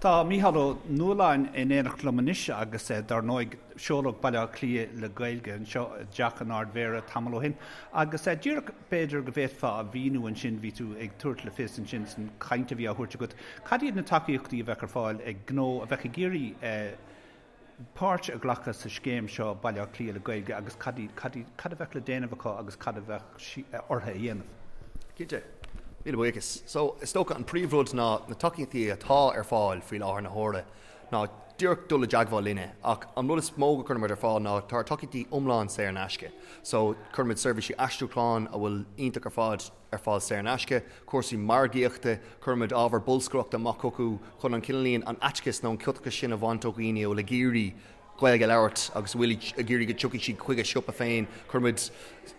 Tá Mícheál Ó Nualláin in éineacht liom anois agus dar ndóigh seoladh Baile Átha Cliath le Gaeilge anseo i dTeach an Ardmhéara tamall ó shin agus díreach b'fhéidir go bhféadfá a mhíniú ansin, bhí tú ag tabhairt le fios ansin san chaint a bhí á thabhairt agat, cad iad na tacaíochtaí a bheadh ar fáil ag gnó a bheadh ag iarraidh páirt a ghlacadh sa scéim seo Baile Átha Cliath le Gaeilge agus cad cad cad a bheadh le déanamh acu agus cad a bheadh orthu a dhéanamh? Cinnte. Míle buíochas. So, is dócha an príomhrud ná na tacaíochtaí atá ar fáil faoi láthair na huaire ná díreach dul i dteagmháil linne ach an rud is mó go gcuirimid ar fáil ná tá ár tacaíochtaí iomlán saor in aisce. So, cuirimid seirbhísí aistriúcháin a bhfuil iontach ar fad ar fáil saor in aisce, cúrsaí margaíochta, cuirimid ábhar bolscaireachta amach chucu chun an cineáilín, an fhaitíos nó an ciotachas sin a bhaint ó dhaoine a bhfuil ag iarraidh Gaeilge a labhairt agus a bhfuil ag iarraidh go dtiocfaidh siad chuig a siopa féin. Cuirimid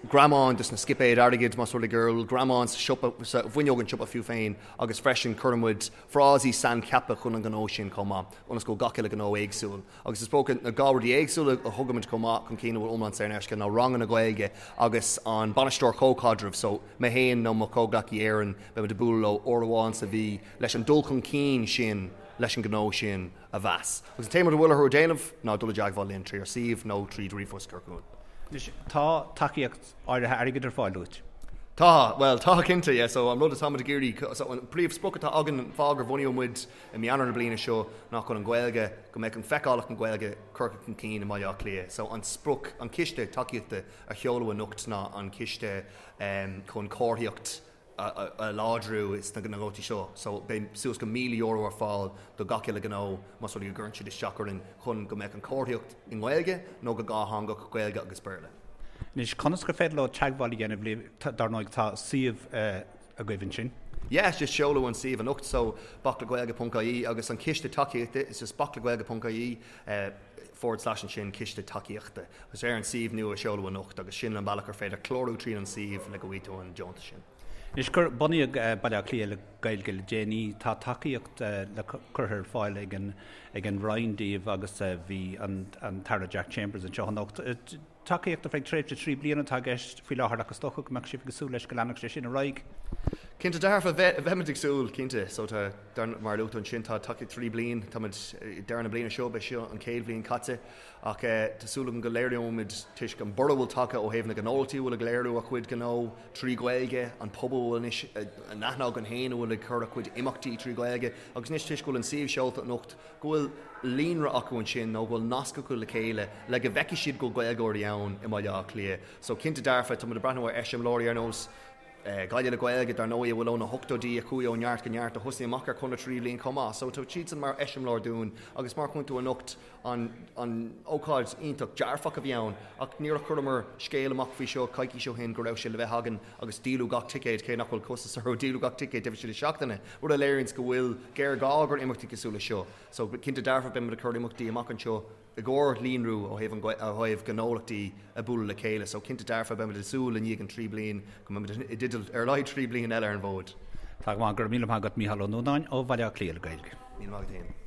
greamáin dos na scipéid airgid más rud é go bhfuil greamáin sa siopa, sa bhfuinneog an tsiopa fiú féin agus freisin cuirimid frásaí saincheaptha chun an ghnó sin chomh maith ionas go bhfuil gach uile ghnó éagsúil. Agus is dócha na dhá rudaí éagsúla a thugaimid chomh maith chun cinn a bhfuil iomlán saor in aisce ná ranganna Gaeilge agus an bainisteoir comhchaidrimh, so mé féin nó mo chomhghleacaí Éireann, beimid ag bualadh leo uair amháin sa mhí leis an dul chun cinn sin leis an ghnó sin a mheas. Agus an t-aon rud a bhfuil orthu a dhéanamh ná dul i dteagmháil linn trí ár suíomh nó tríd ríomhphost a chur chugainn. Anois, tá tacaíocht áirithe airgid ar fáil uait? Tá, bhuel, tá cinnte, yeah, so an rud atáimid ag iarraidh, so an príomhsprioc atá againn, an fáth gur bhunaíodh muid i mí Eanáir na bliana seo ná chun an Ghaeilge, go mbeadh an feiceálacht na Gaeilge curtha chun cinn i mBaile Átha Cliath. So an sprioc, an ciste tacaíochta a sheoladh anocht ná an ciste chun comharthaíocht a láidriú sna gnóthaí seo. So beidh suas go €1,000 ar fáil do gach uile ghnó más rud é go gcuireann siad isteach orainn chun go mbeadh an chomharthaíocht i nGaeilge nó go dhátheangach, Gaeilge agus Béarla. Anois, conas gur féidir leo teagmháil a dhéanamh libh? Dar ndóigh tá suíomh agaibh ansin. Yeah, just seoladh an suíomh anocht so baclegaeilge ponc ie agus an ciste tacaíochta is just baclegaeilge ponc ie forward slash ansin ciste tacaíochta agus ar an suíomh nua a seoladh anocht agus sin an bealach ar féidir clárú tríd an suíomh le go bhfaighidh tú an deontas sin. Anois gur bunaíodh Baile Átha Cliath le Gaeilge le déanaí, tá tacaíocht le curtha ar fáil ag an ag an Roinn daoibh agus bhí an an tAire Jack Chambers anseo anocht. Tacaíocht ar feadh tréimhse 3 bliana atá i gceist faoi láthair ach is dócha go mbeadh sibh ag súil leis go leanfadh sé sin ar aghaidh. Cinnte dearfa, bheimid ag súil, cinnte. So tá, mar a luaigh tú ansin, tá tacaíocht 3 bliain, táimid ag deireadh na bliana seo, beidh seo an chéad bhliain caite ach tá súil agam go léireoimid toisc an borradh a bhfuil tagtha ó thaobh na gnólachtaí a bhfuil ag léiriú a chuid gnó trí Ghaeilge, an pobal a bhfuil anois in aithne againn féin a bhfuil ag cur a chuid imeachtaí trí Ghaeilge agus anois toisc go bhfuil an suíomh seolta anocht go bhfuil líonra acu ansin nó go bhfuil nasc acu le chéile le go bhfeicfidh siad go bhfuil Gaeilgeoirí ann i mBaile Átha Cliath. So cinnte dearfa, tá muid ag breathnú ar eiseamláirí ar nós Gaillimh le Gaeilge, dar ndóigh, a bhfuil ó na hochtóidí, a chuaigh ó neart go neart, a thosaigh amach ar chonradh 3 bhliain chomh maith. So tá siadsan mar eiseamláir dúinn agus mar a chonaic tú anocht an an ócáid iontach dearfach a bhí ann ach níor chuireamar scéal amach faoi seo coicís ó shin go raibh sé le bheith againn agus díoladh gach ticéad, cé nach bhfuil costas orthu, díoladh gach ticéad taobh istigh de seachtaine, rud a léiríonns go bhfuil géarghá ag imeachtaí cosúil leis seo. So, cinnte dearfa, beidh muid ag cur imeachtaí amach anseo i gcomhair líonrú ó thaobh an ó thaobh gnólachtaí ag bualadh le chéile. So, cinnte dearfa, beidh muid ag súil i ndiaidh an 3 bliain go mbeidh muid i dteideal ar a laghad 3 bliain eile ar an bhfód. Tá go maith, go raibh míle maith agat Mícheál Ó Nuanáin ó Bhaile Átha Cliath le Gaeilge. Míle maith agat féin.